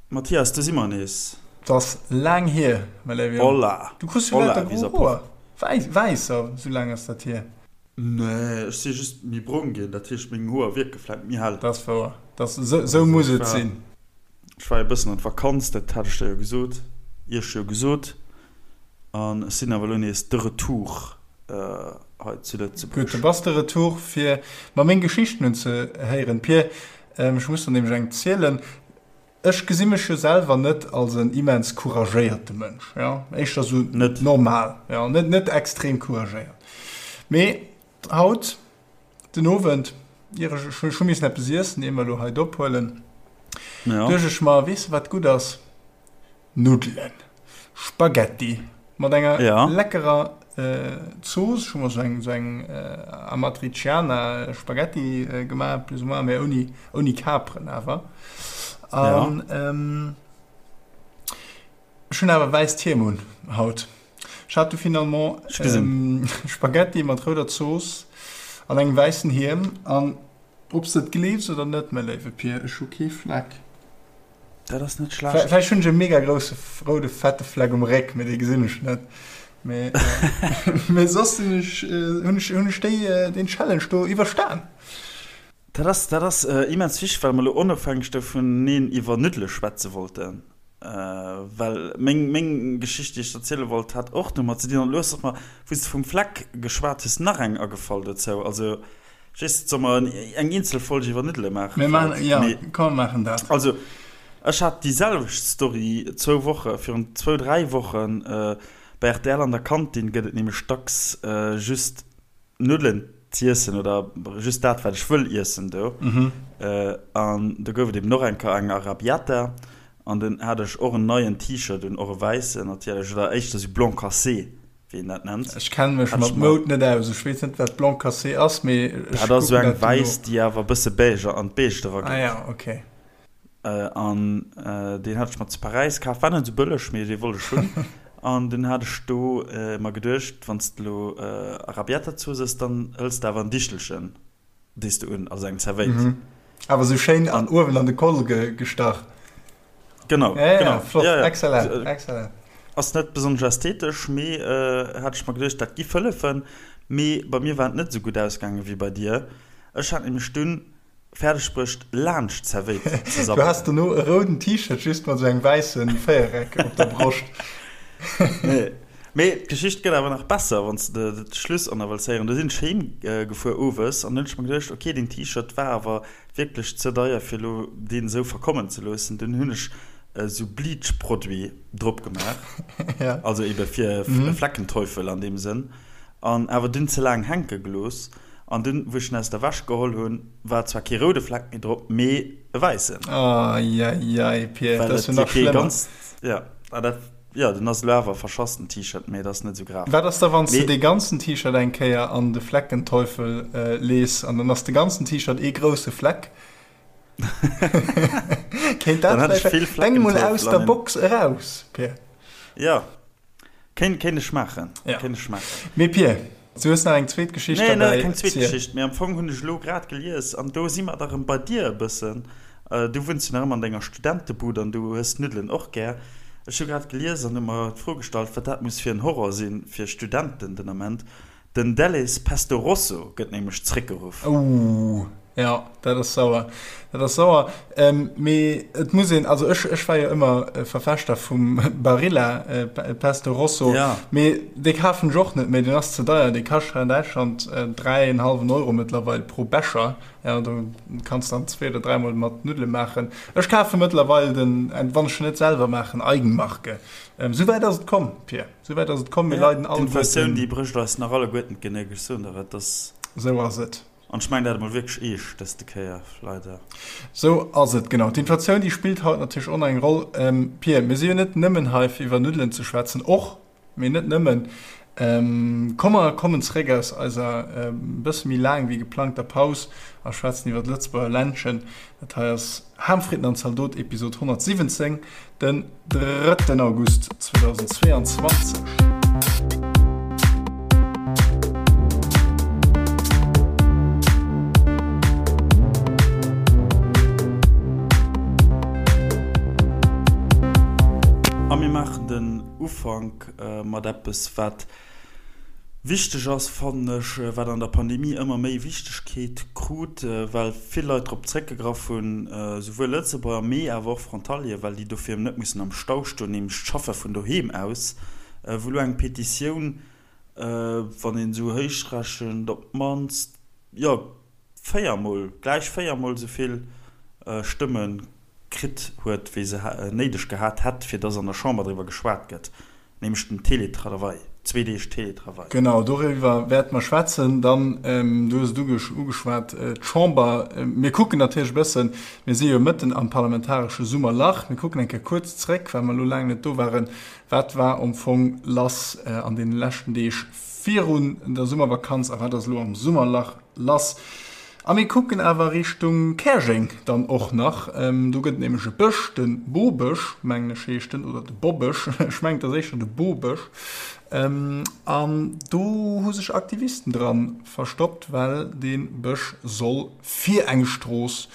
Mathias, do si mer nees. 't ass laang hier, mäi léiwe Jong. Hola! Du kriss jo Hola, lauter gro wieser Hoer. Proff. Wäiss, wäisser, sou laang ass dat hier. Nee, ech si just méi brong ginn, dat heescht meng Hoer wierke vläit méi hell. Dat ass wouer. Dat ass, sou, sou Also muss ech et war, sinn. ech war e bëssen an d'Vakanz, dat hat ech der jo gesot, iech jo gesot. An ech sinn awer elo nees de Retour hei zu Gutt, Lëtzebuerg. du bass de Retour, fir mer meng Geschichten unzehéieren. Pir, ech muss der nämlech eng zielen. Ech gesi mech jo selwer net als en immens couragéierte Mënsch, jo, éischter sou Net. normal, jo, net net extrem couragéiert. Mee haut den Owend, ier ech, ech hu missen eppes iessen, ier mer elo hei d'ophuelen, Ja. duecht ech mer, weess de wat gutt ass? Nuddelen, Spaghetti mat enger Ja. leckerer Zooss. Ech hu mer sou eng sou eng Amatriciana Spaghetti gemaach, plus ou moins, mee ouni ouni Kaperen awer. Ja. An ech hunn awer wäisst Hiem un haut. Ech hat du finalement Ech gesinn. Spaghetti mat rouder Zooss an engem wäissen Hiem. An ob s de et gleefs oder net, mäi léiwe Pir, ech hu kee Fleck. Dat ass net schlecht. Vläicht hunn ech e mega grousse roude fette Fleck um Réck, mee dee gesinn ech net. Mee, mee soss sinn ech, hunn ech, hunn ech déi, deen Challenge do iwwerstan. Dat ass, dat ass immens wichteg, well mer elo onofhängeg dovuneen iwwer Nuddele schwätze wollten. Well meng, meng Geschicht, déi ech erziele wollt, hat och domat ze dinn. An elo ass mer, wou s de vum Fleck geschwat hues, nach eng agefall dozou. Also Just, soll mer eng eenzel Folg iwwer Nuddele maachen? Mir maachen, ja, komm mer maachen dat. Also, ech hat déi selwecht Story zwou Woche, virun zwou, dräi Wochen. Bei rtl an der Kantin gëtt et nämlech dacks just Nuddelen z'iessen oder just dat, wat ech wëll iessen do. An do gouf et eben och eng Kéier eng Arrabbiata an dunn hat ech och en neien T-Shirt un, och e wäissen natierlech, oder éischter sou blanc cassé. wéi een dat nennt. Ech kenne mech mat Moud net aus. Ech weess net, wat Blanc cassé ass, mee ech Dat ass esou eng wäiss, déi awer e bësse beige an d'Beige erageet. Ah ja, ok. An deen hat ech mer zu Paräis kaf. War net esou bëlleg, mee dee wollt ech hunn. An dunn hat ech do mer geduecht, wann s de elo Arrabbiata-Zooss ëss, dann hëls de awer en Dichelchen. Dees de un, also eng Zerwéit. Mhm. Awer sou schéin an uewen an de Koll ge gestach. Genau, ja, ja, genau. Flott, ja, ja. Excellent, excellent. Ass net besonnesch ästhetesch, mee äh, hat ech mer geduecht, dat giff hëllefen. Mee bei mir war et net sou gutt ausgaangen wéi bei dir. Ech hat nämlech dunn fäerdeg bruecht laanscht d'Zerwéit ze Du sabbelen. has dono e rouden T-Shirt just mat sou engem wäisse Véiereck op der Broscht. Nee. Mee d'Geschicht gëtt awer nach besser, wann s de de Schluss och nach wëlls héieren. Do sinn ech heem gefuer owes an hunn ech mer geduecht, ok, deen T-Shirt war awer wierklech ze deier fir elo deen esou verkommen ze loossen. Dunn hunn ech esou Bleach-Produit drop gemaach, also ebe fir e Fleckenteufel an deem Sënn, an awer dunn ze laang hänke gelooss. An dunn, wou ech en aus der Wäsch geholl hunn, war zwar kee roude Fleck méi drop, mee e wäissen. Eieiei, Pir, dat ass jo nach schlëmmer. Jo, dat. Jo, den ass elo awer verschass den T-Shirt, mee et ass net esou grav. Wat ass da wanns de dee ganzen T-Shirt eng Kéier an de Fleckenteufel lees an dann ass de ganzen T-Shirt ee grousse Fleck? Kéint dat vläicht? Denk mol aus der Box eraus, Pir. Jo, kéint kéint ech maachen, kéint ech maachen. Mee Pir, du hues nach eng zweet Geschicht derbäi. Nee, keng zweet Geschicht, mee am Fong hunn ech elo grad gelies, an do si mer da rëm bei dir e bëssen, Du wunns jo nach ëmmer an denger Studentebud an du hues d'Nuddelen och gär. Ech hu grad gelies an hu mer d'Fro gestallt, wat dat muss fir en Horror si fir Studenten den Ament. Den Delhaize Pesto Rosso gëtt nämlech zréckgeruff. Ouh, jo, dat ass sauer. Dat ass sauer. Mee et muss een, also ech, ech war jo ëmmer Verfechter vum Barilla Pesto Rosso, mee dee kafen ech och net méi, deen ass ze deier. Dee kascht hei an Däitschland 3 en hallwen Euro mëttlerweil pro Becher. Ja, do kanns dann zwee oder dräimol mat Nuddele maachen. Ech kafe mëttlerweil den, wann ech net selwer maachen, Eigenmarke. Ähm, souwäit ass et komm, Pir. Souwäit ass et komm. Mir Ja, leiden alleguerten. d'Inflatioun, déi brécht eis nach alleguerten d'Genéck, ech soen der et. Dass. Sou ass et. An ech mengen dat emol wierklech eescht dëste Kéier, leider. Sou ass et, genau. D'Inflatioun, déi spillt haut natierlech och nach eng Roll. Ähm, Pir, mir si jo net nëmmen hei, fir iwwer Nuddelen ze schwätzen, och. Mee net nëmmen. Komm mer kommen zeréck aus eiser e bësse méi laang wéi geplangter Paus a schwätzen iwwer d'Lëtzebuerger Ländchen. Dat hei ass Ham, Fritten an Zaldot, Episod 117, den drëtten August 2022. A mir maachen den Ufank mat eppes, wat wichteg ass, fannen ech, wat an der Pandemie ëmmer méi Wichtegkeet krut, well vill Leit drop zréckgegraff hunn, souwuel Lëtzebuerger, mee awer och Frontalieren, well déi dofir net mussen am Stau stoen, nämlech d'Schaffe vun doheem aus, wou elo eng Petitioun, wann een esou héich rechent, op d'mannst, jo, véiermol, gläich véiermol esou vill Stëmme kritt huet, wéi se néideg gehat hätt, fir dass an der Chamber driwwer geschwat gëtt, nämlech den Télétravail, zwee Deeg Télétravail. Genau, doriwwer wäerte mer schwätzen. Dann, du hues et ugeschwat, d'Chamber. Mir kucken natierlech e bëssen, mir si jo mëtten am parlamentaresche Summerlach, mir kucken eng Kéier kuerz zréck, well mer elo laang net do waren, wat war am Fong lass an deene leschten Deeg virun der Summervakanz a wat ass elo am Summerlach Lass. A mir kucken awer Richtung Käerjeng dann och nach. Do gëtt et nämlech e Bësch, de Bobësch, mengen ech heescht en, oder de Bobësch, ech mengen et ass éischter de Bobësch. An do hu sech Aktivisten dra verstoppt, well dee Bësch soll fir eng Strooss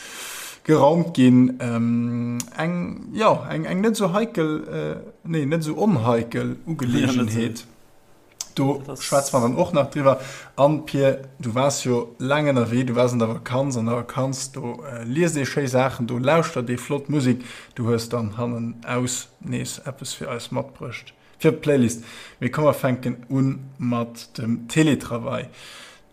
geraumt ginn. Eng, jo, eng net esou heikel, nee, net esou onheikel Ugeleegenheet. Do schwätze mer dann och nach driwwer. An Pir, du waars jo laang ënnerwee, du waars an der Vakanz. An der Vakanz, do liest ee schéi Saachen, do lauschtert ee flott Musek. Du hues dann hannenaus nees eppes fir eis matbruecht fir d'Playlist. Mee komm, mer fänken u mat dem Teletravail.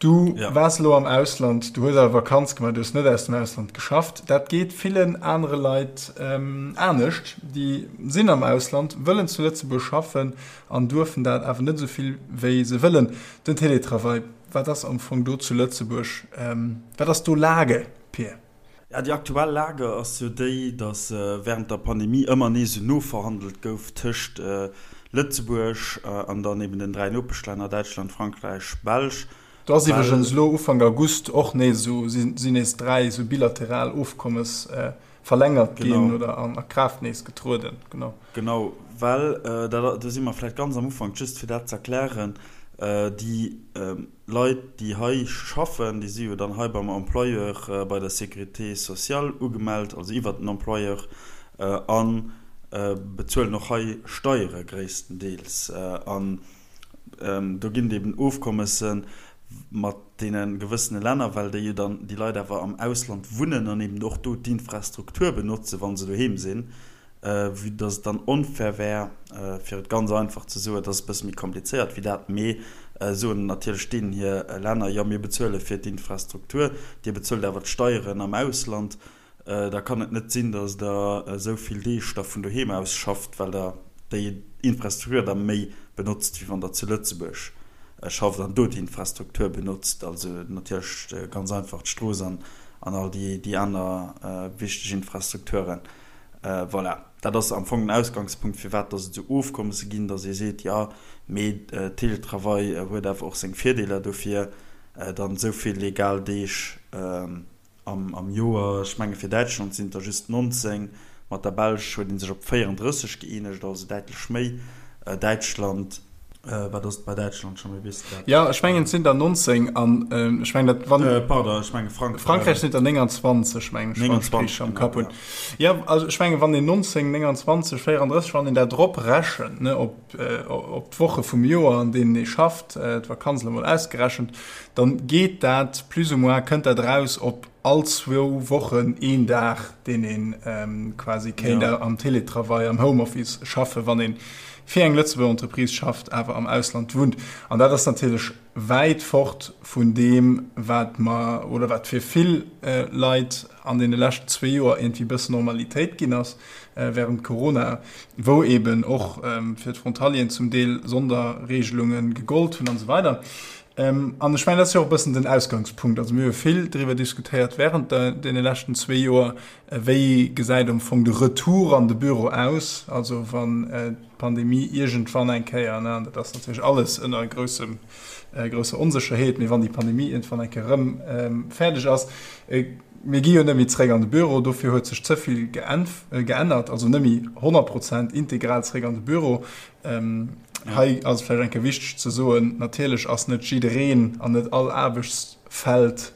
Du waars elo am Ausland, du hues awer Vakanz gemaach, du hues net aus dem Ausland geschafft. Dat geet villen anere Leit anescht, déi sinn am Ausland, wëllen zu Lëtzebuerg schaffen an duerfen dat awer net esou vill wéi se wëllen. Den Télétravail, wat ass am Fong do zu Lëtzebuerg, wat ass do Lage, Pir? Ja, déi aktuell Lage ass jo déi, datt während der Pandemie ëmmer nees esou noverhandelt gouf tëscht Lëtzebuerg an dann eben den 3 Nopeschlänner Däitschland, Frankräich, Belsch. Do ass iwwregens elo Ufank August och nees esou, sinn nees 3 esou bilateral Ofkommes verlängert ginn oder an a Kraaft nees getrueden. Genau. Genau, well dat, do si mer vläicht ganz am Ufank, just fir dat ze erklären, déi Leit, déi hei schaffen, déi si jo dann hei beim Employeur bei der Sécurité sociale ugemellt, also iwwert den Employeur, a bezuelen och hei Steiere gréisstendeels. An do ginn et eben Ofkommesse mat deene gewëssene Länner, well déi jo dann, déi Leit awer am Ausland wunnen an eben och do d'Infrastruktur benotzen, wa se doheem sinn. Vue dass et dann onfair wär, fir et ganz einfach ze soen, et ass e bësse méi komplizéiert wéi dat, mee soen natierlech deenen hir Länner, jo mir bezuele fir d'Infrastruktur, dir bezuelt awer d'Steieren am Ausland, da kann et net sinn, dass der esou vill Deeg da vun doheem aus schafft, well der déi Infrastruktur da méi benotzt, wéi wann der zu Lëtzebuerg schafft an do d'Infrastruktur benotzt, also natierlech ganz einfach d'Strooss an all déi aner wichteg Infrastrukturen. Voilà, dat ass am Fong den Ausgangspunkt, firwat dass et esou Ofkommesse ginn, dass ee seet, jo, mee Teletravail huet awer och seng Virdeeler, dofir dann esou vill legal Deeg am Joer. Ech menge fir Däitschland sinn et der just 19, mat der Belsch huet ee sech op 34 gëeenegt, also däitlech méi. Däitschland. Wat ass et bei Däitschland scho méi, weess de dat? Jo, ech mengen et sinn der 19 an ech mengen dat wann. Pardon, ech menge Frankräich. Frankräich sinn der 29 mengen ech, wann ech richteg am Kapp hunn. Jo, also ech menge wann een 19, 29, 34, wann een dat drop rechent, ne, op op d'Woche vum Joer an deenen ee schafft, d'Vakanz elo mol ausgerechent, dann geet dat plus ou moins, kënnt dat eraus op all zwou Wochen een Dag, deen ee quasi kéint am Teletravail, am Homeoffice schaffen, wann ee fir eng Lëtzebuerger Entreprise schafft, awer am Ausland wunnt. An dat ass natierlech wäit fort vun deem, wat mer oder wat fir vill Leit an deene leschten zwee Joer iergendwéi e bëssen Normalitéit ginn ass während Corona, wou eeben och fir d'Frontalieren zum Deel Sonderregelunge gegollt hunn an esou weider. An ech mengen, dat ass jo och e bëssen den Ausgangspunkt. Also mir hu vill driwwer diskutéiert während deene leschten zwee Joer, wéi gesäit am Fong de Retour an de Büro aus, also wann d'Pandemie iergendwann eng Kéier, ne, an dat ass natierlech alles ënner groussem, grousser Onsécherheet, mee wann déi Pandemie iergendwann eng Kéier erëm fäerdeg ass, mir gi jo net méi zréck an de Büro, dofir huet sech ze vill geännert, also net méi 100 Prozent integral zréck an de Büro. Hei ass et vläicht eng Kéier wichteg ze soen, natierlech ass net jiddereen an net all Aarbechtsfeld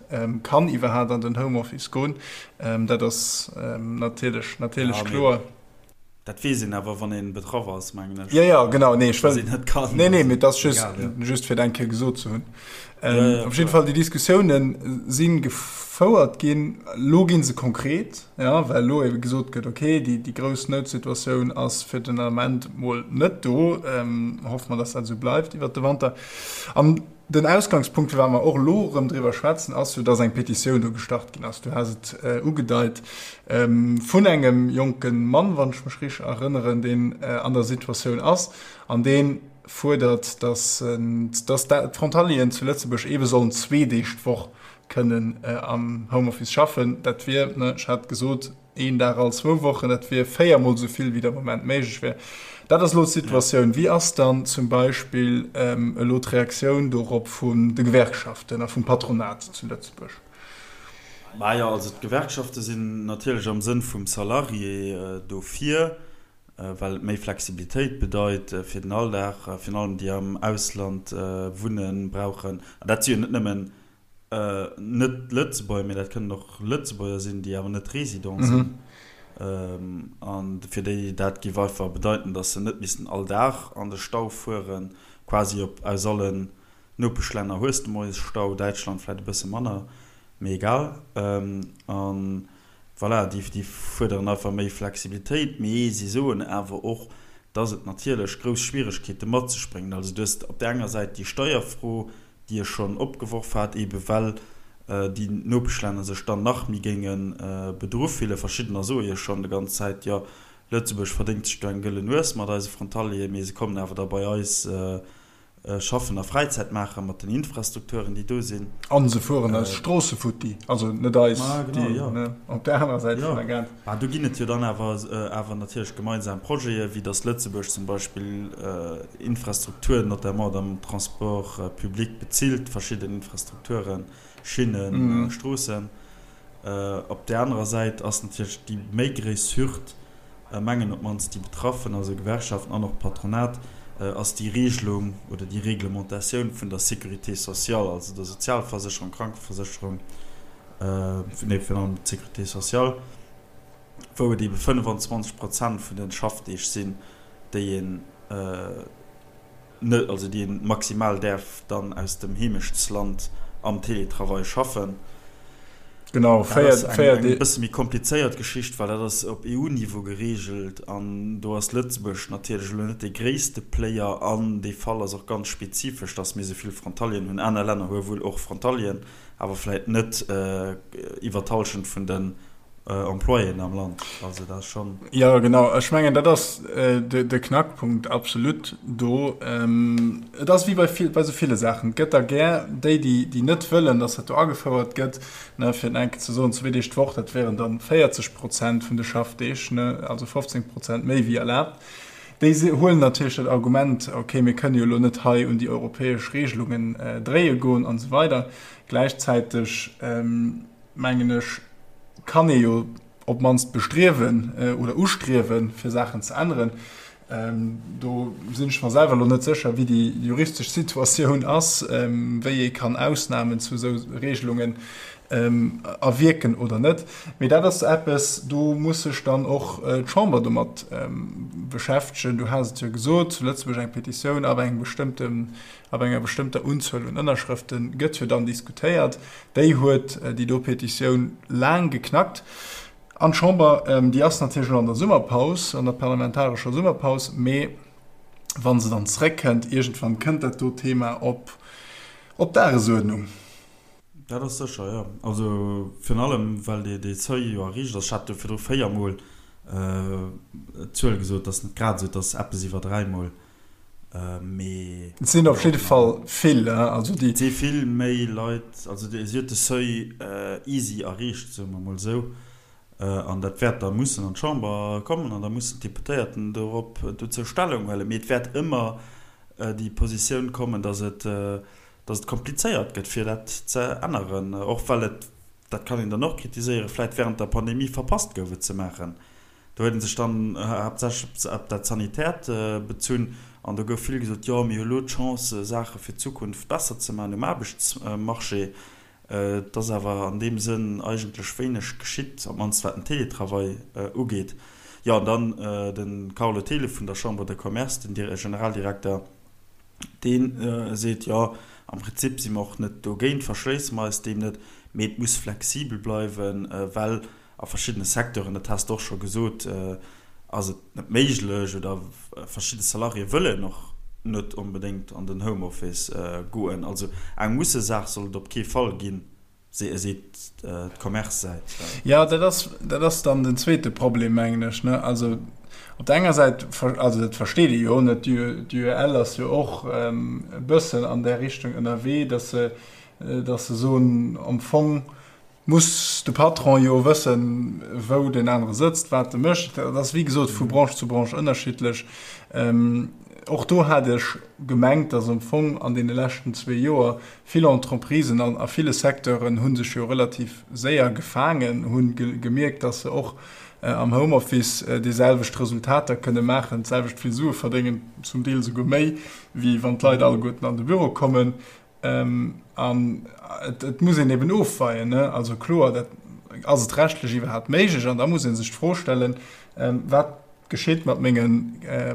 kann iwwerhaapt an den Homeoffice goen. Dat ass natierlech, natierlech kloer. Dat weess een awer, wann ee betraff ass, mengen ech. Jo, jo, genau. Nee, ech wëll. Dass een net kann. Nee, nee, mee et ass just, just fir et eng Kéier gesot ze hunn. Op jidde Fall, déi Diskussiounen si gefouert ginn. Elo gi se konkret, jo, well elo ebe gesot gëtt, okay, déi, déi grouss Noutsituatioun ass fir den Ament mol net do. Hoffe mer, dass dat esou bleift iwwert de Wanter. An Den Ausgangspunkt, firwat mer och elo erëm driwwer schwätzen, ass jo, dass eng Petitioun do gestart ginn ass, du has et ugedeit, vun engem jonke Mann, wann ech mech richteg erënneren, deen an der Situatioun ass an dee fuerdert, dass d'Frontalieren zu Lëtzebuerg eebe sollen zwee Deeg d'Woch kënnen am Homeoffice schaffen. Dat wier, ech hat gesot, Een Dag all zwou Wochen, dat wier véiermol esou vill, wéi de Moment méiglech wier. Dat ass elo d'Situatioun. Wéi ass dann zum Beispill elo d'Reaktioun dorop vun de Gewerkschaften a vum Patronat zu Lëtzebuerg? Majo, also d'Gewerkschafte sinn natierlech am Sënn vum Salarié dofir, well et méi Flexibilitéit bedeit fir den Alldag, virun allem déi am Ausland wunnen, brauchen, an dat si jo net nëmmen Net Lëtzebuerger, mee dat kënnen och Lëtzebuerger sinn, déi awer net Resident sinn. An fir déi dat géif einfach bedeiten, datt se net missten all Dag an de Stau fueren, quasi op aus allen Nopeschlänner hues de moies Stau, Däitschland vläit e bësse manner, mee egal. An voilà, déi déi fuerderen einfach méi Flexibilitéit, mee si soen awer och, datt et natierlech grouss Schwieregkeete mat sech bréngt. Also du hues op där enger Säit déi Steierfro, déi ech schonn opgeworf hat, eebe well déi Nopeschlänner sech dann nach méi géinge bedru fillen. Verschiddener soe jo schonn de ganz Zäit, jo, Lëtzebuerg verdéngt sech do eng gëllen Nues mat eise Frontalieren, mee se kommen awer da bei eis schaffen a Fräizäit maache mat den Infrastrukturen, déi do sinn. A se fueren eis Stroosse futti, also net eis, déi op där anerer Säit vun der Grenz. Mä do ginn et jo dann awer awer natierlech gemeinsam Projete, wéi datt Lëtzebuerg zum Beispill Infrastrukturen, notamment am Transport public, bezilt, verschidden Infrastrukturen, Schinnen, Stroossen. Op där anerer Säit ass natierlech déi méi gréiss Hürd, mengen op d'mannst déi Betraffen, also Gewerkschaften an och d'Patronat, ass déi Regelung oder déi Reglementatioun vun der Sécurité sociale, also der Sozialversécherung, Krankeversécherung, nee, virun allem d'Sécurité sociale, wou et eebe 25 Prozent vun de Schaffdeeg sinn, déi een net, also déi een maximal däerf dann aus dem Heemechtsland am Télétravail schaffen. Genau, Dat ass eng, eng bësse méi komplizéiert Geschicht, well dat ass op EU-Niveau geregelt an do ass Lëtzebuerg natierlech elo net dee gréisste Player an dee Fall ass och ganz spezifesch, datt mir esou vill Frontalieren hunn. Aner Länner hu wuel och Frontalieren, awer vläit net iwwer d'Hallschent vun den Employéen am Land. Also dat ass schonn. Jo, genau. Ech mengen, dat ass de Knackpunkt absolut do. Et ass wéi bei vill, bei esou ville Saachen. Et gëtt der gär déi, déi, déi net wëllen, datt dat do agefouert gëtt. Ne, fir et enke ze soen, zwee Deeg d'Woch, dat wären dann 40 Prozent vun de Schaffdeeg, ne, also 15 Prozent méi wéi erlaabt. Déi huelen natierlech dat Argument, okay, mir kënne jo elo net hei un déi europäesch Regelungen dréie goen an esou weider. Gläichzäiteg, mengen ech, kann ee jo op d'mannst bestriewen oder ustriewen, fir Saachen ze änneren. Do sinn ech mer selwer elo net sécher, wéi déi juristesch Situatioun ass, wéi ee kann Ausnamen zu esou Regelungen erwierken oder net. Mee dat ass eppes, do muss sech dann och d'Chamber domat beschäftegen. Du has et jo gesot, zu Lëtzebuerg eng Petitioun ab engem bestëmmten Ab enger bestëmmter Unzuel un Ënnerschrëfte gëtt jo dann diskutéiert. Déi huet déi do Petitioun laang geknackt. An d'Chamber, déi ass natierlech elo an der Summerpaus, an der parlamentarescher Summerpaus, mee wa se dann zréckkënnt, iergendwann kënnt dat do Thema op op d'Dagesuerdnung. Dat ass sécher, jo. Also virun allem, well dee Seuil jo erreecht ass. Ech hat jo virdru véiermol d'Zuel gesot, dat ass net grad esou, et ass eppes iwwer dräimol. Mee Et sinn op jidde Fall vill, also déi. Et si vill méi Leit, also si huet de Seuil easy erreecht, soe mer emol esou. An dat wäert da mussen an d'Chamber kommen an da mussen d'Deputéierten dorop dozou Stellung huelen. Mee et wäert ëmmer déi Positioun kommen, datt et, datt et komplizéiert gëtt, fir dat ze änneren, och well et, dat kann een dann och kritiséieren, vläicht während der Pandemie verpasst gouf, et ze maachen. Do huet ee sech dann haaptsächlech op dat Sanitäert bezunn an do gouf vill gesot, jo, mir hu lo d'Chance, Saache fir d'Zukunft besser ze maachen um Aarbechtsmarché. Et ass awer an deem Sënn eigentlech wéineg geschitt, op d'mannst wat den Télétravail ugeet. Jo, an dann de Carlo Thelen vun der Chambre de Commerce, den Generaldirekter, dee seet, jo, am Prinzip si mer och net dogéint, verschléisse mer eis deem net, mee et muss flexibel bleiwen, well a verschiddene Secteuren, dat has de och scho gesot, ass et net méiglech oder verschidde Salariéë wëllen och net onbedéngt an den Homeoffice goen. Also eng Mussesaach soll et op kee Fall ginn, seet d'Commerce-Säit. Jo, dat ass, dat ass dann den zweete Problem, mengen ech, ne. Also op der enger Säit, also dat versteet ee jo, ne, d'UEL ass jo och e bëssen an där Richtung ënnerwee, datt se, datt se soen, am Fong muss de Patron jo wëssen, wou deen anere sëtzt, wat e mécht. Dat ass, wéi gesot, vu Branche zu Branche ënnerschiddlech. Och do hat ech gemengt, datt am Fong an deene leschten zwee Joer vill Entreprisen an a ville Secteuren hu sech jo relativ séier gefaangen, hu gemierkt, datt se och am Homeoffice déi selwecht Resultater kënne maachen, d'selwecht vill Sue verdéngen, zum Deel esouguer méi, wéi wann d'Leit alleguerten an de Büro kommen. An et muss een eben ofweien, ne? Also kloer, dat ass et rechtlech iwwerhaapt méiglech? An da muss ee sech d'Fro stellen, Wat geschitt mat menge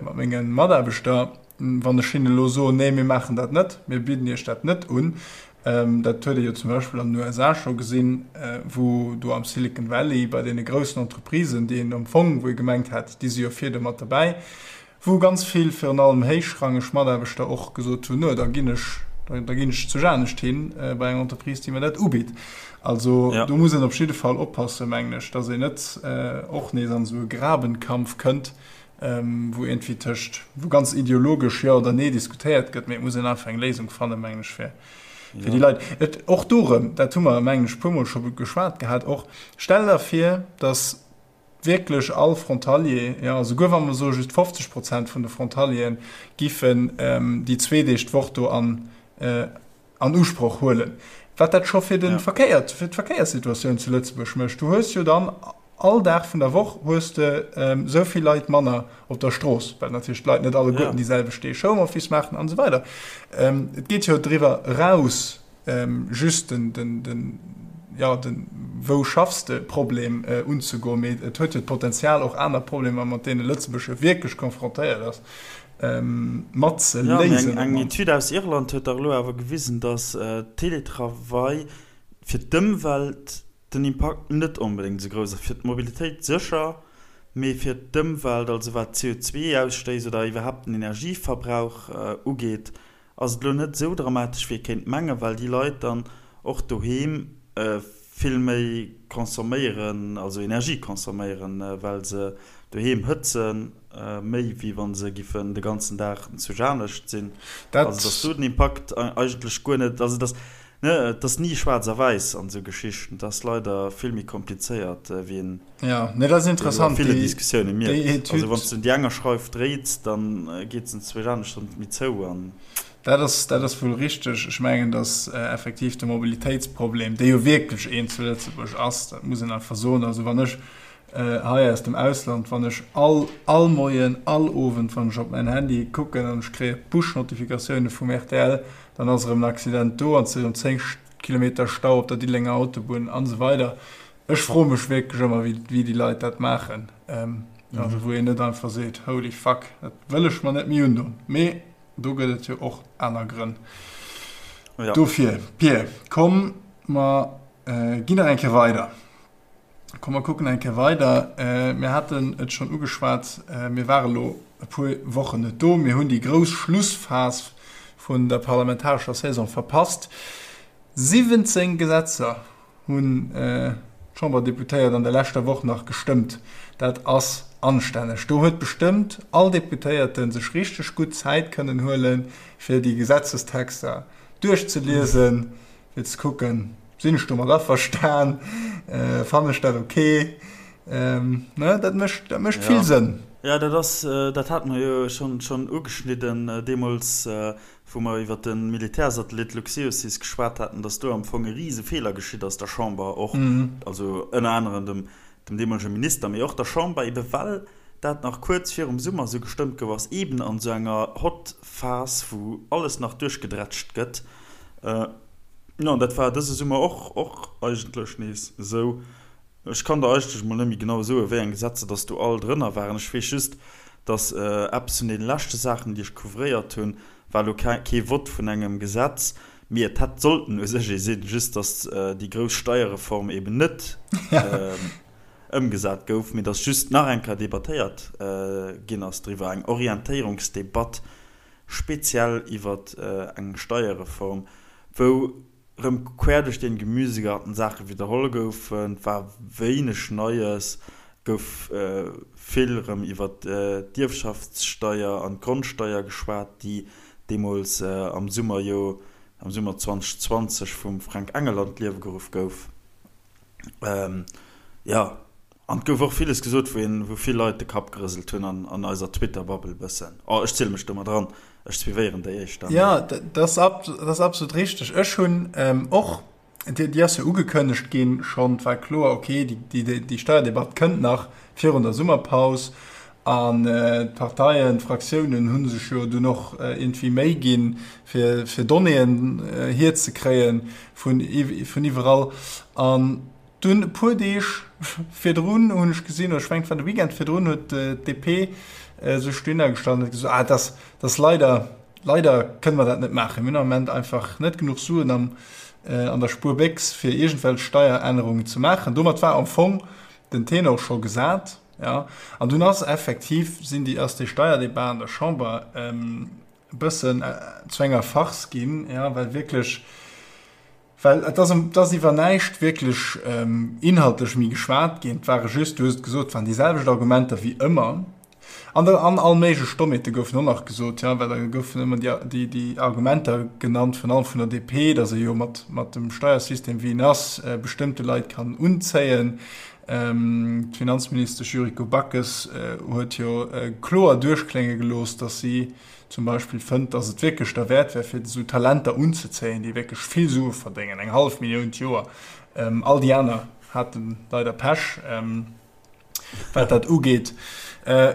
mat menge Mataarbechter, wann ech hinnen elo soen, Nee, mir maachen dat net, mir bidden Iech dat net un? Dat huet ee jo zum Beispill an den USA scho gesinn, wou do am Silicon Valley bei deene groussen Entreprisen, déi een am Fong, wou ee gemengt hat, déi si jo vir do mat derbäi, Wou ganz vill, virun allem héichrangeg Mataarbechter och gesot hunn, No, da ginn ech, da ginn ech zu anescht hin, bei eng Entreprise, déi mir dat ubitt. Also do muss een op jidde Fall oppassen, mengen ech, dass een net och nees an esou e Grabenkampf kënnt, wou iergendwéi tëscht, wou ganz ideologesch Jo oder Nee diskutéiert gëtt, mee et muss een einfach eng Léisung fannen, mengen ech, fir déi Leit. Et, och do erëm, dat hu mer, mengen ech, e puermol scho geschwat gehat och, Stell der vir, dass wierklech all Frontalier, jo, esouguer wa mer soe just 50 Prozent vun de Frontalieren giffen déi zwee Deeg d'Woch do an an Usproch huelen, wat dat scho fir de Verkéier, fir d'Verkéierssituatioun zu Lëtzebuerg mécht. Du hues jo dann all Dag vun der Woch hues de esou vill Leit manner op der Strooss, well natierlech d'Leit net alleguerten déi selwecht Deeg Homeoffice maachen an esou weider. Et geet jo driwwer eraus. just den, den, den, ja, den Wou schaffs de Problem unzegoen, mee et huet jo d'Potenzial och aner Problemer, mat deene Lëtzebuerg jo wierklech konfrontéiert ass, mat ze léisen. Jo, mee eng Etüd aus Irland huet dach elo awer gewisen, datt Teletravail fir d'Ëmwelt den Impakt net onbedéngt esou grouss ass. Fir d'Mobilitéit sécher, mee fir d'Ëmwelt, also wat d'CO2-Ausstéiss oder iwwerhaapt den Energieverbrauch ugeet, ass et elo net esou dramatesch wéi ee kéint mengen, well déi Leit dann och doheem vill méi consomméieren, also Energie consomméieren, well se doheem hëtzen, méi wéi wa se giffen de ganzen Dag zu Janescht sinn. Also dass do den Impakt eigentlech guer net, also dass, ne, et ass ni schwaarz a wäiss an esou Geschichten, et ass leider vill méi komplizéiert wéi een Ja, nee, dat ass interessant. Déi, déi Diskussioune mierkt. Also wann s du déi enger Schreif dréits, dann geet se zwéi anescht dann méi zou an. Dat ass, dat ass wuel richteg. Ech mengen, datt effektiv de Mobilitéitsproblem, dee jo wierklech een zu Lëtzebuerg ass, dat muss een einfach soen. Also wann ech hei aus dem Ausland, wann ech all, all Moien, all Owend, wann ech op mäin Handy kucken an ech kréie Push-Notifikatioune vum rtl, dann ass erëm en Accident do an et si erëm 10 Kilometer Stau op der Diddelenger Autobunn an esou weider. Ech froe mech wierklech ëmmer, wéi déi Leit dat maachen. Also wou een net einfach seet, holy fuck, dat wëll ech mer net méi undon. Mee do gëtt et jo och aner Grënn dofir. Pir, komm mer ginn nach eng Kéier weider. Komm mer kucken eng Kéier weider. Mir haten et schonn ugeschwat, mir ware lo e puer Wochen net do. Mir hunn déi grouss Schlussphas vun der parlamentarescher Saison verpasst. 17 Gesetzer hunn d'Chamberdeputéiert an der leschter Woch nach gestëmmt. Dat ass anstänneg. Do huet bestëmmt all Deputéierte sech richteg gutt Zäit kënnen huelen, fir déi Gesetzestexter duerchzeliesen, fir ze kucken, Sinn ech domat averstan? Fannen ech dat ok? Ne, dat mécht, dat mécht vill Sënn. Jo, dat ass, dat hate mer jo schonn ugeschnidden deemools, wou mer iwwert de Militärsatellit Luxeosys geschwat haten, dass do am Fong e rise Feeler geschitt ass, der Chamber och, also ënner anerem dem, dem deemolege Minister, mee och der Chamber, ebe well dat nach kuerz virum Summer esou gestëmmt gouf ass, eben an esou enger Hot Phase, wou alles nach duerchgedrätscht gëtt. Jo, an dat war dëse Summer och, och eigentlech nees esou. Ech kann der eigentlech mol net méi genau soen, wéi eng Gesetzer dass do all drënner waren. Ech weess just, dass eppes vun deene leschte Saachen, déi ech couvréiert hunn, war elo kee Vott vun engem Gesetz, mee et hätt sollten u sech ee sinn, just dass déi grouss Steierreform eben net ëmgesat gouf, mee dass just nach eng Kéier debattéiert ginn ass driwwer, eng Orientéierungsdebatt speziell iwwer eng Steierreform, wou Rëm quer duerch den Gemüsegarten Saache widderholl goufen, et war wéineg Neies, gouf vill rëm iwwer d'Ierfschaftssteier an d'Grondsteier geschwat, déi deemools am Summer jo, am Summer 2020 vum Fränk Engel an d'Liewe geruff gouf. Jo, An et gouf och villes gesot, wou een, wou vill Leit de Kapp gerëselt hunn an, an eiser Twitter-Bubble bëssen. Oh, ech ziele mech do mat eran, ech suivéieren déi éischter, mee. Jo, dat ass, dat ass absolut richteg. Ech hunn och, déi, déi ass jo ugekënnegt ginn schonn, et war kloer, okay, déi, déi, déi Steierdebatt kënnt nach virun der Summerpaus. An d'Parteien, d'Fraktiounen hu sech jo dunn och iergendwéi Méi ginn, fir, fir Donnéeën hierzekréien vun, vun iwwerall. An Dunn e puer Deeg virdrun hunn ech gesinn, oder ech mengen et war de Weekend virdrun, huet d'DP sech dohinner gestallt an huet gesot, ah, dat ass leider, leider kënne mer dat net maachen, mir hunn am Moment einfach net genuch Suen am, an der Spuerbéchs, fir iergendwelch Steierännerungen ze maachen. Domat war am Fong den Tenor scho gesat, ja. An dunn ass effektiv, sinn déi, ass déi Steierdebat an der Chamber e bëssen zu enger Farce ginn, ja, well wierklech, Well et ass, et ass iwwer näischt wierklech inhaltlech méi geschwat ginn. Et ware just, du hues et gesot, et waren déi selwecht Argumenter wéi ëmmer. An da, an all méiglech Stommheete goufen och nach gesot, jo, well da goufen ëmmer déi, déi, déi Argumenter genannt, virun allem vun der DP, datt ee jo mat, mat dem Steiersystem, wéi en ass, bestëmmte Leit kann unzéien. D'Finanzministesch Yuriko Backes huet jo kloer duerchklénge gelooss, datt si, zum Beispill fënnt, dass et wierklech derwäert wär, fir esou Talenter unzezéien, déi wierklech vill Sue verdéngen, eng hallef Millioun d'Joer. All déi aner hate leider Pech, wat dat ugeet.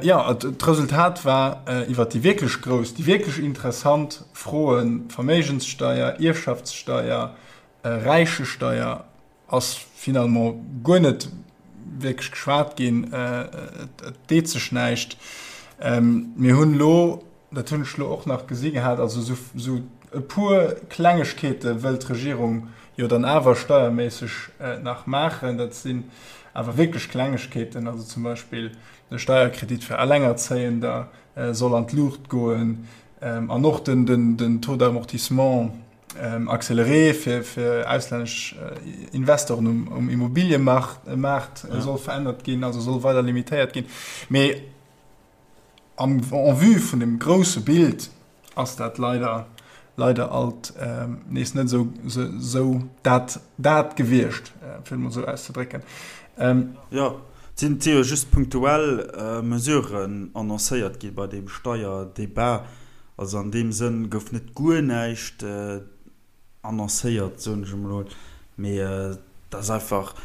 Jo, d'Resultat war, iwwert déi wierklech grouss, déi wierklech interessant Froen, Verméigenssteier, Ierfschaftssteier, Räichesteier, Ass finalement guer net wierklech geschwat ginn. Et deet sech näischt. Mir hunn elo, dat hunn ech elo och nach gesi gehat, also esou e puer Klengegkeete wëllt d'Regierung jo dann awer steierméisseg nach maachen. Dat sinn awer wierklech Klengegkeeten, also zum Beispill de Steierkredit fir Allengerzéiender soll an d'Luucht goen an och den Taux d'amortissement, accéléré fir fir auslännesch Investoren um, um Immobiliëmaart Maart ja. soll verännert ginn, also soll weider limitéiert ginn. Mee am en vue vun dem grousse Bild ass dat leider leider alt ähm, nees net sou, sou, sou dat, dat gewiescht, äh, fir mol sou auszedrécken. Ähm, ja, sinn jo just punktuell äh, Mesuren annoncéiert gi bei deem Steierdebat. Also an deem Sënn gouf net guer näischt annoncéiert, soen ech emol, mee et ass einfach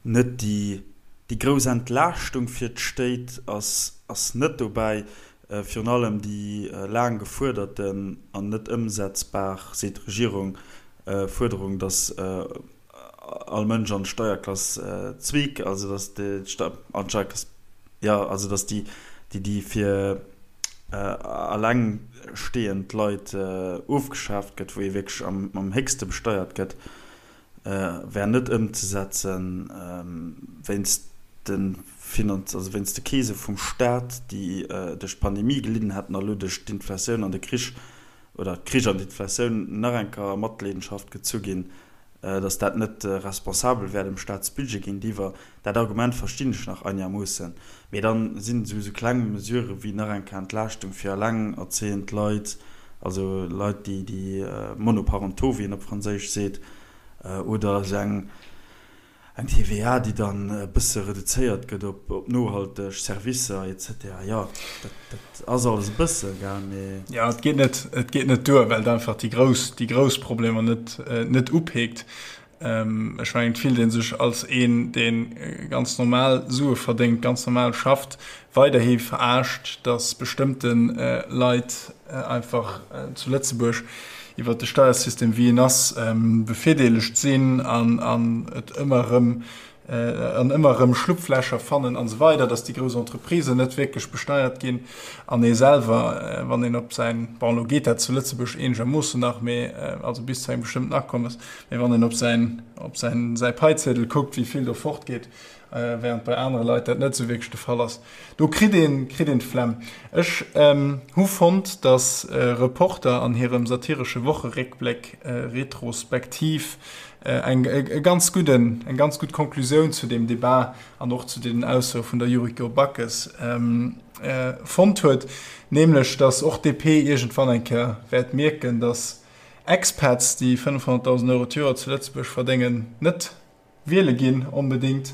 net déi, déi grouss Entlaaschtung fir d'Stéit ass, ass net dobäi. Virun allem déi laang gefuerderten an net ëmsetzbar, seet d'Regierung, Fuerderung, datt all Mënsch an d'Steierklass zweek, also datt déi an d'Steierklass, jo, also datt déi, déi déi fir allengstehend Leit ofgeschaaft gëtt, wou ee wierklech am am héchste besteiert gëtt, wär net ëmzesetzen wéinst de Finanz, also wéinst de Keese vum Staat, déi duerch d'Pandemie gelidden hätten a lo duerch d'Inflatioun an de Krich oder d'Krich an d'Inflatioun nach eng Kéier a Matleedenschaft gezu ginn, datt dat net responsabel wär dem Staatsbudget géintiwwer. Dat Argument verstinn ech nach einermoossen. Mee dann sinn esou esou kleng Mesurë wéi nach eng Kéier Entlaaschtung fir elengerzéiend Leit, also Leit, déi déi monoparentaux, wéi een op Franséisch seet, oder esou eng Eng TVA, déi dann e bësse reduzéiert gëtt op nohalteg Servicer et cetera. Jo, dat ass alles e bësse, gell, mee. Jo, et geet net, et geet net duer, well et einfach déi grouss, déi grouss Problemer net, net upeekt. Ech mengen, et fillt ee sech als een, dee ganz normal Sue verdéngt, ganz normal schafft, weiderhi verarscht, datt bestëmmte Leit einfach zu Lëtzebuerg iwwert de Steiersystem wéi en ass bevirdeelegt sinn an et ëmmer erëm. an ëmmer erëm Schlupflächer fannen an esou weider, dass déi grouss Entreprisen net wierklech besteiert ginn an ee selwer, wann een op säin, bon elo geet dat zu Lëtzebuerg eenegermoossen nach, mee also bis zu engem bestëmmten Akommes, mee wann een op säin, op säin, säi Paiziedel kuckt, wéi vill do fortgeet, während bei anere Leit dat net esou wierklech de Fall ass, do kritt een, kritt een d'Flemm. Ech hu fonnt, dass Reporter an hirem satiresche Wocheréckbléck retrospektiv eng e ganz gudden, eng ganz gutt Konklusioun zu deem Debat an och zu deenen Aussoe vun der Yuriko Backes fonnt huet, nämlech datt och d'DP iergendwann eng Kéier wäert mierken, datt Expats, déi 500.000 Euro d'Joer zu Lëtzebuerg verdéngen, net wiele ginn onbedéngt,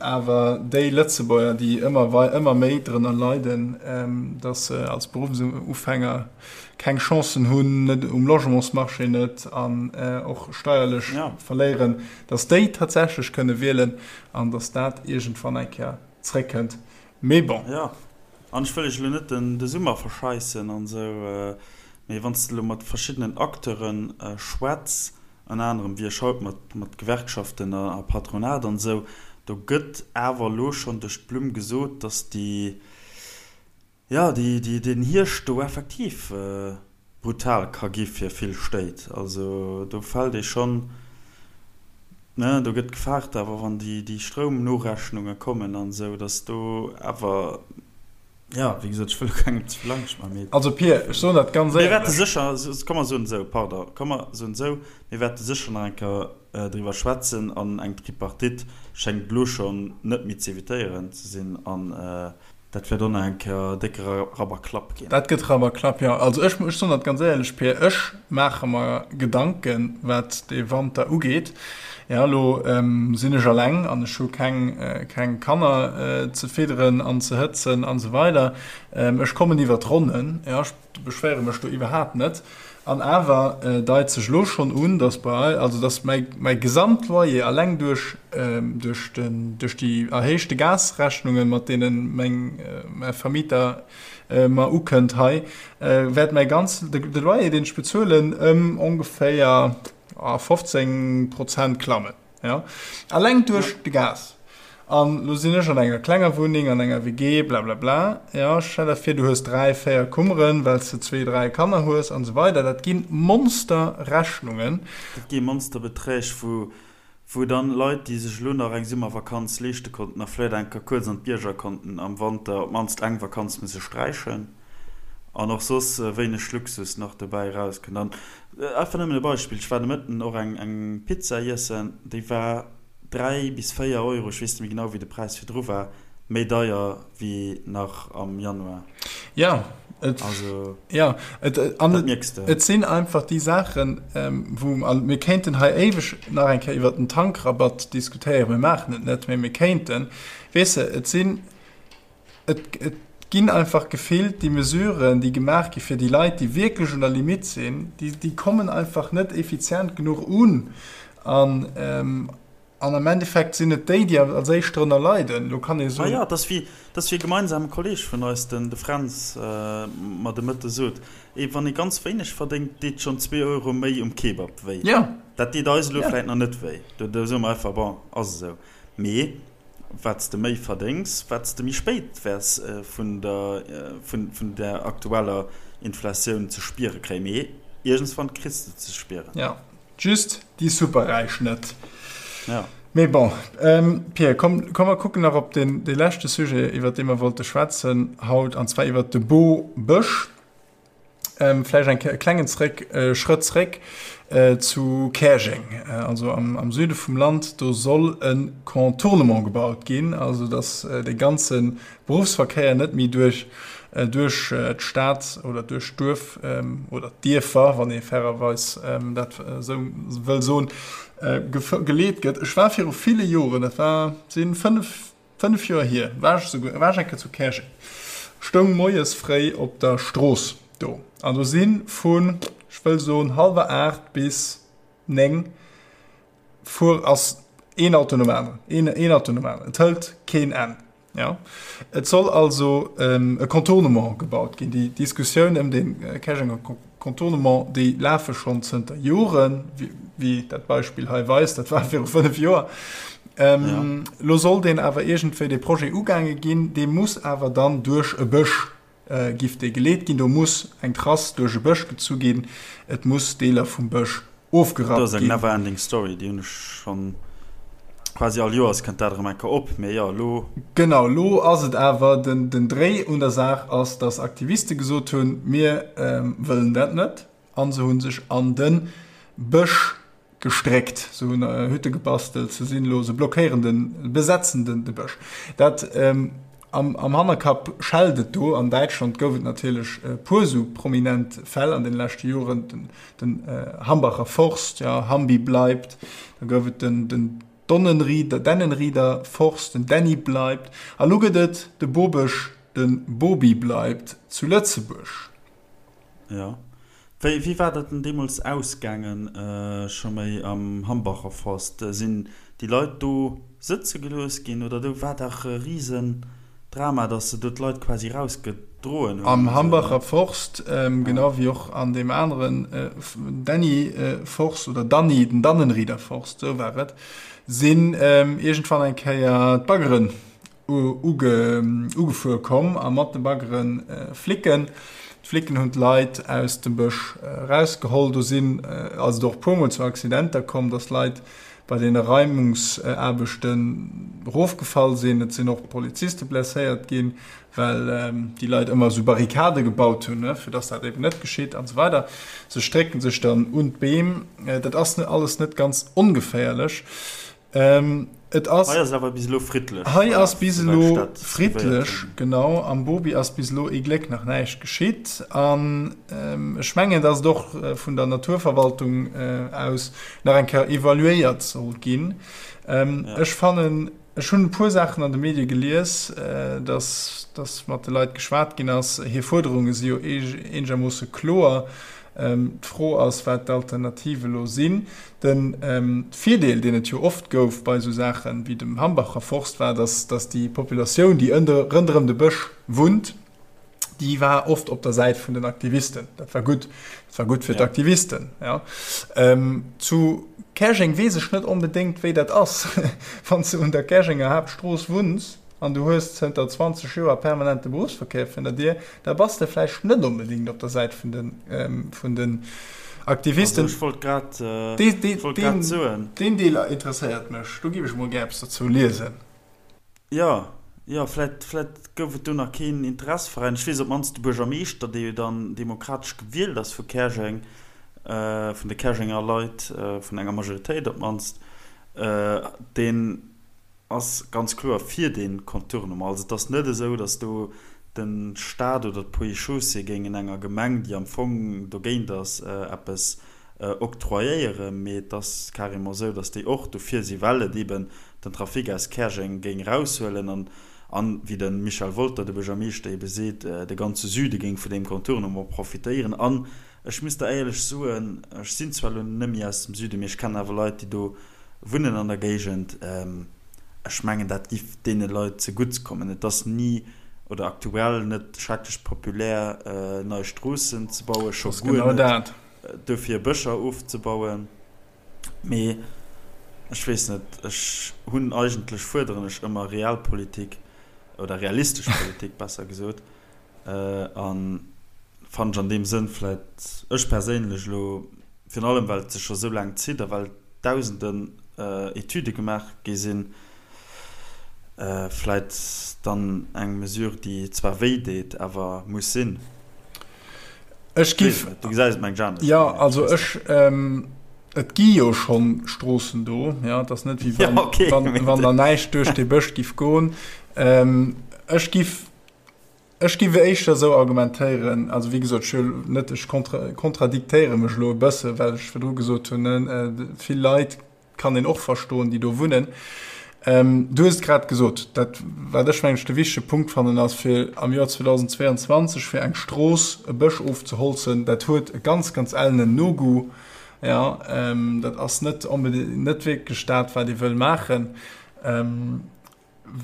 awer déi Lëtzebuerger, déi ëmmer ëmmer méi drënner leiden, datt se als Beruffsufänger keng Chancen hunn, net um Logementsmarché net an och steierlech verléieren, datt déi tatsächlech kënne wielen an datt dat iergendwann eng Kéier zréckkënnt. Mee bon. Jo, an ech wëll iech elo net de Summer verscheissen an esou, mee wann s de elo mat verschiddenen Acteure schwätz, ënner anerem wéi ech haut mat mat Gewerkschaften a Patronat an esou, do gëtt awer elo schonn duerch d'Blumm gesot, datt déi, jo, déi, déi, deen Hierscht do effektiv brutal ka gi fir vill Stéit. Also do fält ee schonn, ne, do gëtt gefaart awer, wann déi, déi Stroumnorechnunge kommen an esou, datt do awer, Jo, wéi gesot, ech wëll elo kengem ze vill Angscht maachen, mee. Also Pir, ech soen dat ganz éierlech. Mir wäerte sécher, komm mer soen esou, pardon, komm mer soen esou, mir wäerte sécher nach eng Kéier driwwer schwätzen an eng Tripartite schéngt elo schonn net méi z'evitéieren ze sinn an dat wäert och nach eng Kéier décke Rabberklapp ginn. Dat gëtt Rabberklapp, jo. Also ech, ech soen dat ganz éierlech, Pir, ech maache mer Gedanken, wat dee Wanter ugeet. Jo, elo sinn ech alleng an ech hu keng, keng Kanner ze fidderen an ze hëtzen an esou weider. Ech kommen iwwer d'Ronnen, jo, ech beschwéiere mech do iwwerhaapt net. An awer deit sech elo schonn un, dass bei, also dass mäi, mäi Gesamtloyer alleng duerch, duerch den, duerch déi erhéichte Gasrechnungen, mat deene meng, mäi Vermieter mer ukënnt hei, wäert mäi ganz, de Loyer, deen ech bezuelen, ëm ongeféier, 15 Prozent klammen, jo, alleng duerch de Gas. An lo sinn ech an enger klenger Wunneng, an enger WG, blablabla, jo, stell der vir, du hues 3, 4 Kummeren, well s de zwee, 3 Kanner hues an esou weider. Dat gi Monsterrechnungen. Dat gi Monsterbeträg, wou, wou dann Leit, déi sech elo nach eng Summervakanz leeschte konnten a vläicht eng Kéier kuerz an d'Bierger konnten, am Wanter op d'mannst eng Vakanz musse sträichen. An och soss wéineg Luxus nach dobäi erauskënnt. An einfach nëmmen e Beispill, Ech war de Mëtten och eng eng Pizza iessen, déi war 3 bis 4 Euro, ech weess net méi genau wéi de Präis virdru war, méi deier wéi nach am Januar. Ja, et, Also, ja, et, an dat et, mierks de. et sinn einfach déi Saachen, wou, an mir kéinten hei éiweg nach eng Kéier iwwert den Tankrabatt diskutéieren, mir maachen et net, mee mir kéinten, weess de, et sinn, Et ginn einfach gefillt déi Mesuren, déi gemaach gi fir déi Leit, déi wierklech un der Limitt sinn, déi kommen einfach net effizient genuch un. An am Endeffekt sinn et déi, déi als éischt drënner leiden. Elo kann ee soen. Majo, et ass wéi, et ass wéi e gemeinsame Kolleeg vun eis, den de Fränz, mer de Mëtte sot, ee wann ee ganz wéineg verdéngt, deet schonn zwee Euro méi um Kebab wéi. Dat deet eis elo vläicht nach net wéi. Do soe mer einfach, bon, ass esou. Mee Wat s de méi verdéngs, wat s de méi spéit wäers vun der vun der aktueller Inflatioun ze spiere kréien. Mee iergendswann kriss de ze spieren. Jo, just déi Superräich net. Jo. Mee bon, Pierre, komm, komm mer kucken nach op deen, dee leschte Sujet, iwwert dee mer wollte schwätzen haut, an zwar iwwert de Bobësch. Vläicht eng e klengen zréck, Schrëtt zréck zu Käerjeng, also am, am Süde vum Land. Do soll e Contournement gebaut ginn, also datt de ganze Beruffsverkéier net méi duerch, duerch d'Stad oder duerch d'Duerf oder d'Dierfer, wann ee fairerweis dat esou wëll soen, geleet gëtt. Ech war viru ville Joren, dat war, si 5, 5 Joer hier, war ech souguer, war ech eng Kéier zu Käerjeng, stoung moies fréi op der Strooss do an do si vun, ech wëll soen, hallwer 8 bis 9 fuer, ass een Auto nom aneren, een, een Auto nom aneren, et hëlt keen Enn. Jo, et soll also e Contournement gebaut ginn. Déi Diskussioun ëm dee Käerjenger Contournement, déi lafe schonn zënter Joren, wéi dat Beispill hei weist, dat war viru 5 Joer. Elo soll deen awer iergendwéi, dee Projet ugaange ginn, dee muss awer dann duerch e Bësch giff dee geleet ginn. Do muss eng Trass duerch e Bësch gezu ginn, et muss Deeler vum Bësch ofgerappt ginn. Dat ass eng never ending story, déi hunn ech schonn quasi all Joers kënnt dat erëm eng Kéier op, mee jo elo. Genau, elo ass et awer, den Dréi un der Saach ass, datt Aktiviste gesot hunn, mir wëllen dat net, a se hu sech an de Bësch gestréckt, se hunn Hütte gebastelt, se sinn elo, se blockéieren den, besetzen den de Bësch. Dat am, am Hannerkapp schellt et do. An Däitschland gouf et natierlech e puer esou prominent Fäll an den leschte Joren, den, den Hambacher Forst, ja, Hambi bleibt, da gouf et den, den Donnenrieder, Dennenrieder Forst, den Dänni bleibt, a lo gëtt et de Bobësch, de Bobi bleibt zu Lëtzebuerg. Jo. Wéi, wéi war dat denn deemools ausgaangen, scho méi am Hambacher Forst? Sinn déi Leit do sëtze gelooss ginn oder do war dach e risen Drama, dass se do d'Leit quasi rausgedroen hunn? Am Hambacher Forst, genau wéi och an deem aneren Dänni Forst oder Danni, den Dannenrieder Forst, esou war et, sinn iergendwann eng Kéier d'Baggeren ugefuer komm a mat de Baggere Flicken. D'Flicken hunn d'Leit aus dem Bësch erausgeholl. Do sinn ass et och e puermol zu Accidenter komm, datt Leit bei deene Reimungsaarbechten erofgefall sinn. Et sinn och Poliziste blesséiert ginn, well déi Leit ëmmer esou Barrikade gebaut hunn, fir datt dat eben net geschitt an esou weider. Se strécken sech dann un d'Beem. Dat ass alles net ganz ongeféierlech. Et ass. Hei ass et awer bis elo friddlech. Hei ass bis elo friddlech, genau. Am Bobi ass bis elo ee Gléck nach näischt geschitt. An ech mengen, datt et och vun der Naturverwaltung aus nach eng Kéier evaluéiert soll ginn. Ech fannen, ech hunn e puer Saachen an de Medie gelies, datt, datt mat de Leit geschwat ginn ass. Hir Fuerderunge si jo eenegermoosse kloer. D'Fro ass, wat d'Alternative elo sinn. De Virdeel, deen et jo oft gouf bei esou Saachen wéi dem Hambacher Forst, war, dass déi Populatioun, déi rënderëm de Bësch wunnt, déi war oft op der Säit vun den Aktivisten. Dat war gutt. Dat war gutt fir d'Aktivisten. Zu Käerjeng weess ech net onbedéngt, wéi dat ass, wann s de un der Käerjenger Haaptstrooss wunns. an du hues zënter 20 Joer permanent de Beruffsverkéier virun der Dier, da bass de vläicht net onbedéngt op der Säit vun den, vun den Aktivisten. Also ech wollt grad, ech wollt grad soen. Deen Deel interesséiert mech, do giff ech mol gär eppes dozou liesen. Jo, jo, vläicht, vläicht gouf et do nach keen Interesseveräin. Ech weess op d'mannst de Buergermeeschter, dee jo dann demokratesch gewielt ass vu Käerjeng, vun de Käerjenger Leit, vun enger Majoritéit op d'mannst, deen, ass ganz kloer fir dee Contournement. Also et ass net esou, datt do de Stat oder d'Ponts et Chaussées géingen enger Gemeng, déi am Fong dogéint ass, eppes octroyéieren, mee et ass carrément esou, datt déi och dofir si well et eeben den Trafic aus Käerjeng géing eraushuelen an, an, wéi de Michel Wolter, de Buergermeeschter, eebe seet, de ganze Süde géing vun deem Contournement profitéieren. An ech muss der éierlech soen, ech sinn zwar elo net méi aus dem Süden, mee ech kennen awer Leit, déi do Wunnen an der Géigend, ech mengen dat giff deene Leit zegutts kommen. Et ass ni oder aktuell net schrecklech populär nei Stroossen ze bauen, scho guer net dofir Bëscher ofzebauen. Mee ech weess net, ech hunn eigentlech, fuerderen ech ëmmer Realpolitik oder realistesch Politik besser gesot a fannen ech an deem Sënn vläit, ech perséinlech elo, Virun allem well et sech scho sou laang zitt a well dausenden Etüde gemaach gi sinn, vläit dann eng Mesure, déi zwar wéi deet, awer muss sinn. Ech giff. Du gesäis et mengen ech anescht. Jo, also ech, et gi jo schonn Stroossen do, jo, et ass net wéi wann, wann der näischt duerch dee Bësch giff goen. Ech giff. Ech géif éischter esou argumentéieren, also wéi gesot, ech wëll net, ech kontradiktéiere mech elo e bësse well ech virdru gesot hunn, vill Leit kann een och verstoen, déi do wunnen. Du hues et grad gesot, dat wat ech mengen ech de wichtege Punkt fannen ass, fir am Joer 2022 fir eng Strooss e Bësch ofzeholzen, dat huet e ganz, ganz ellenen Nogoût, jo, dat ass net onbedéngt, net wierklech dat wat ee wëll maachen.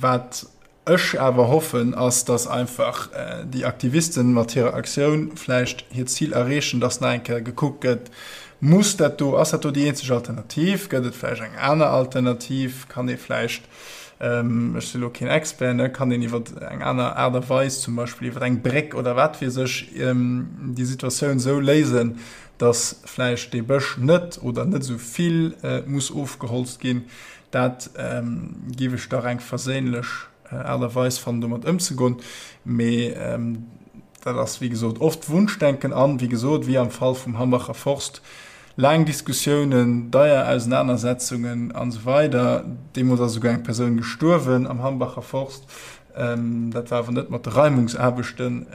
Wat ech awer hoffen, ass, dass einfach déi Aktivisten mat hirer Aktioun vläicht hiert Zil erreechen, dass nach eng Kéier gekuckt gëtt. Muss dat do, ass dat do déi eenzeg Alternativ? Gëtt et vläicht eng aner Alternativ? Kann ee vläicht, ech si lo keen Expert, ne, kann een iwwer eng aner Aart a Weis, zum Beispill iwwer eng Bréck oder wat weess ech, déi Situatioun esou léisen, datt vläicht dee Bësch net oder net esou vill muss ofgeholzt ginn? Dat géif ech dach eng verséinlech Aart a Weis fannen, domat ëmzegoen. Mee Dat ass, wéi gesot, oft Wunschdenken an, wéi gesot, wéi am Fall vum Hambacher Forst, laang Diskussiounen, deier Ausenanersetzungen an esou weider. Deemools ass esouguer eng Persoun gestuerwen am Hambacher Forst. Dat war awer net mat de Reimungsaarbechten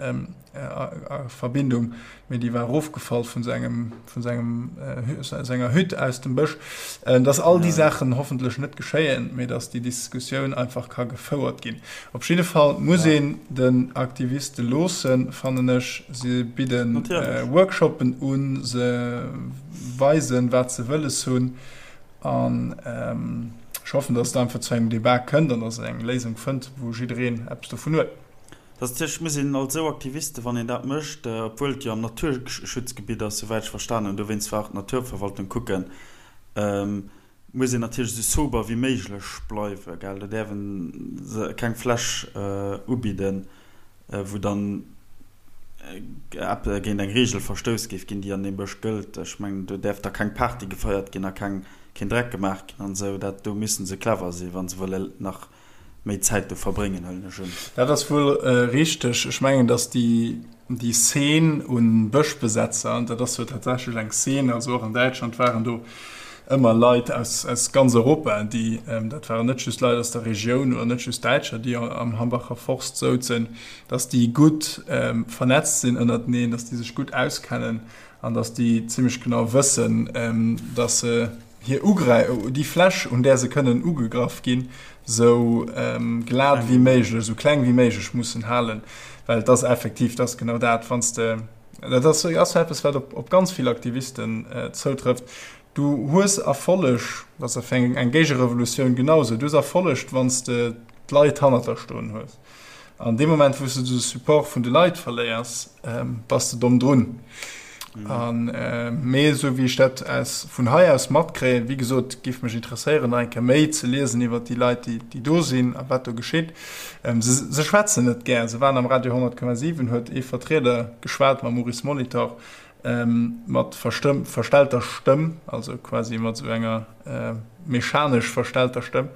a Verbindung, mee déi war erofgefall vun sengem, vun sengem, senger Hütt aus dem Bësch. Dass all déi Saachen hoffentlech net geschéien, mee dass déi Diskussioun einfach ka gefouert ginn. Op jidde Fall muss een den Aktiviste loossen, fannen ech. Se bidde Workshoppen un, se weisen, wat se wëlles hunn. An ech hoffen, dass et einfach zu engem Debat kënnt an dass et eng Léisung fënnt, wou jiddereen eppes dovun huet. Dat ass natierlech, muss een als esou Aktiviste, wann een dat mécht, obwuel et jo am Naturschutzgebitt ass, souwäit ech verstanen hunn, dowéinst war och d'Naturverwaltung kucken, muss een natierlech esou sober wéi méiglech bleiwen, gell. Do däerf e keng Fläsch ubidden, wou dann géint eng Reegel verstouss géif ginn, déi an deem Bësch gëllt. Ech mengen, do däerf da keng Party gefeiert ginn a keng, keen Dreck gemaach ginn an esou. Dat, do müssen se clever sinn, wa se wëlle nach méi Zäit do verbréngen, huelen ech un. Dat ass wuel richteg. Ech mengen, datt déi, déi Szene u Bëschbesetzer, dat ass jo tatsächlech eng Szene, also och an Däitschland waren do ëmmer Leit aus, aus ganz Europa, déi, dat waren net just Leit aus der Regioun oder net just Däitscher, déi am Hambacher Forst souzen, datt déi gutt vernetzt sinn ënnerteneen, datt déi sech gutt auskennen an datt déi zimmlech genau wëssen, datt se, hir Ugräi déi Fläch, un där se kënnen ugegraff ginn, sou glat wéi méiglech, sou kleng wéi méiglech mussen halen, well et ass effektiv, dat ass genau dat, wann s de, dat ass ass eppes, wat op op ganz vill Aktivisten zoutrëfft, du hues Erfolleg, dat ass fir eng Géigerevolutioun genau sou, du hues Erfolleg, wann s de d'Leit hannert der stoen hues. An deem Moment, wou s de de Support vun de Leit verléiers, bass de domm drun. An, mee esou wéi ech dat aus, vun hei aus matkréien, wéi gesot, géif mech interesséieren, nach eng Kéier méi ze liesen iwwert déi Leit, déi, déi do sinn a wat do geschitt. Se, se schwätzen net gär. Se waren am Radio 100,7, huet ee Vertrieder geschwat mam Maurice Molitor, Mat verstellter Stëmm, also quasi mat esou enger mechanesch verstellter Stëmm,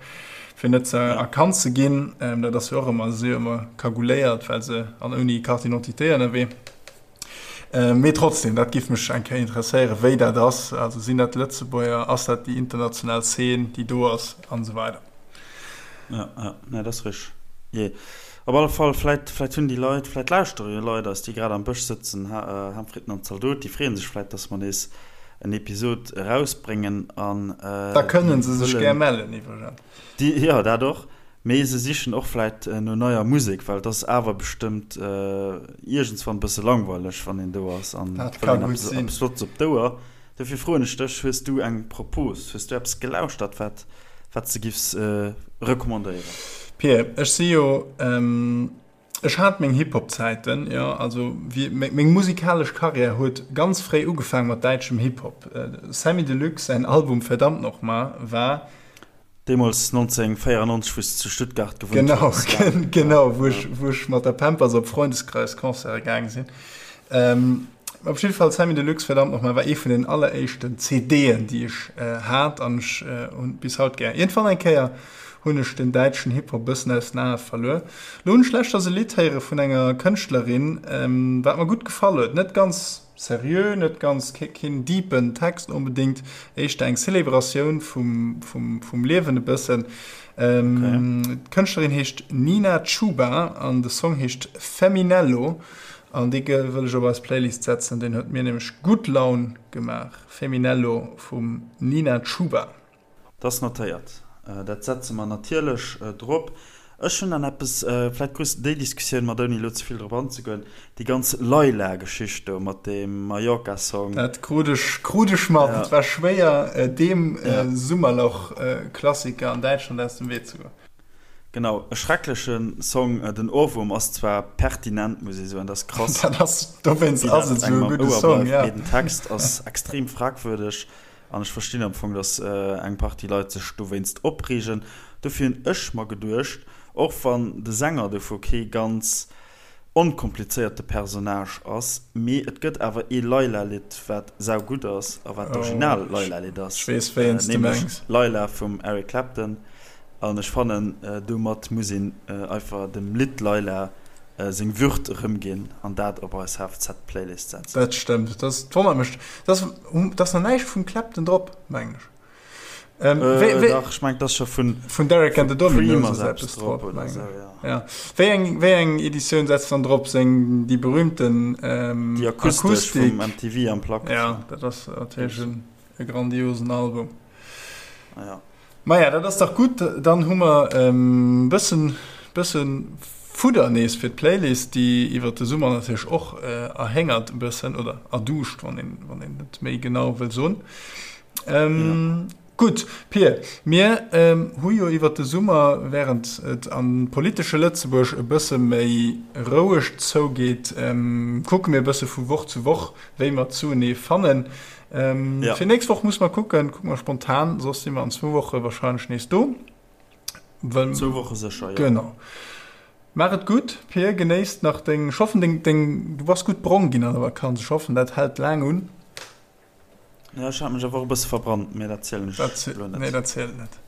fir net ze erkannt ze ginn. Dat ass jo och ëmmer, se si jo ëmmer cagouléiert, well se an ouni Carte d'identité ënnerwee. Mee trotzdem, dat géif mech eng Kéier interesséieren, wéi dat ass. Also sinn dat Lëtzebuerger, ass dat déi international Zeen, déi do ass, an esou weider. Ja, ja, nee, dat ass richteg. Jee. Op alle Fall, vläit, vläit hunn déi Leit, vläit lauschtere jo Leit eis, déi grad am Bësch sëtzen, Ham, Fritten an Zaldot, déi freeë sech vläit, dass mer nees en Episod erausbréngen an Da kënne se sech gär mellen iwwregens. Déi, jo, dat och, mee se sichen och vläit no neier Musek, well et ass awer bestëmmt iergendswann e bësse langweileg, wann een do ass an Dat ka gutt sinn. eppes Flottes op d'Ouer. Dofir froen ech dech, Hues du eng Propos, hues du eppes gelauschtert, wat, wat s de giffs recommandéieren? Pir, ech si jo, ech hat meng Hip-Hop-Zäiten, jo, also wéi, meng musikalesch Karriär huet ganz fréi ugefaang mat däitschem Hip-Hop. Samy Deluxe säin Album Verdammt nochmal war. Deemools 1994, wou s de zu Stuttgart gewunnt Genau, hues, gell? genau, wou ech, wou ech mat der Pampers op Freundeskreis-Concerte gaang sinn. Ähm, op jidde Fall, Samy Deluxe, Verdammt nochmal, war ee vun den alleréischten CDen, déi ech hat an ech hunn bis haut gär. Iergendwann eng Kéier hunn ech den däitschen Hip-Hop bëssen aus den Ae verluer. Lo hunn ech leschters e Lidd héiere vun enger Kënschtlerin, wat mer gutt gefall huet. Net ganz Seriö, net ganz, keen deepen Text onbedéngt, éischter eng Celebratioun vum, vum, vum Liewen e bëssen. D'Kënschtlerin heescht Nina Chuba an de Song heescht Feminello an dee wëll ech op eis Playlist setzen, deen huet mir nämlech gutt Laun gemaach. Feminello vum Nina Chuba. Dat ass notéiert. Dat setze mer natierlech drop. Ech hunn dann eppes, vläicht krus de déi Diskussioun mat, ouni elo ze vill drop anzegoen, déi ganz Layla-Geschicht do mat deem Mallorca-Song. Dat krut ech, krut ech mat. Et war schwéier, deem Summerloch-Klassiker an Däitschland aus dem Wee ze goen. Genau, e schreckleche Song. Den Ohrwurm ass zwar pertinent, muss ee soen, dat ass krass. Dat ass, dowéinst ass et esou e gudde Song, ja. Mee den Text ass extrem fragwürdeg an ech verstinn am Fong, datt eng Partie Leit sech dowéinst opreegen. Dofir hunn ech mer geduecht, och wann de Sänger dovu kee ganz onkomplizéierte Personnage ass, mee et gëtt awer ee Layla-Lidd, wat saugutt ass a wat d'original Layla-Lidd ass, nämlech Layla vum Eric Clapton. An ech fannen, domat muss een einfach dem Lidd Layla seng Würd erëmginn an dat op eis HFZ-Playlist setzen. Dat stëmmt. Dat wonnert mech. Dat ass nach näischt vum Clapton drop, mengen ech. Dach, ech mengen, dat ass scho vun Vun Derek and the Dominos ass eppes drop, mengen ech. Ja. Wéi eng, wéi eng Editioun setzt dann drop? Seng, déi berühmten Déi akustesch vum MTV Unplugged. Ja, dat ass natierlech e grandiosen Album. Ja. Maja, dat ass dach gutt. Dann hu mer e bëssen, bëssen Fudder nees fir d'Playlist, déi iwwert de Summer natierlech och erhéngert e bëssen, oder erduuscht, wann een, wann een et méi genau wëll soen. Gutt, Pir, mir hu jo iwwert de Summer, wärend et am politesche Lëtzebuerg e bësse méi roueg zougeet, kucke mir e bësse vu Woch zu Woch, wéi mer zuenee fannen. Ja. Fir nächst Woch muss mer kucken, kucke mer spontan, soss si mer an zwou Woche wahrscheinlech nees do. Well, zwou Woche sécher, ja. Genau. Maach et gutt, Pir, genéisst nach deng, ech hoffen deng, deng, du bass gutt brong ginn an der Vakanz, ech hoffen dat hält laang un. Ja, ech hat mech awer och e bësse verbrannt, mee dat zielen ech elo net. Nee, dat zielt net.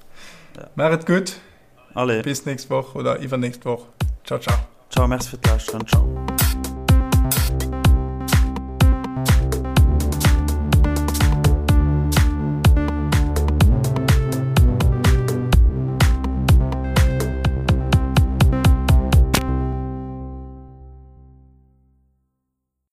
Ja. Maach et gutt. Allez. Bis nächst Woch oder iwwernächst Woch. Ciao, ciao. Ciao, merci fir d'Lauschteren. Ciao.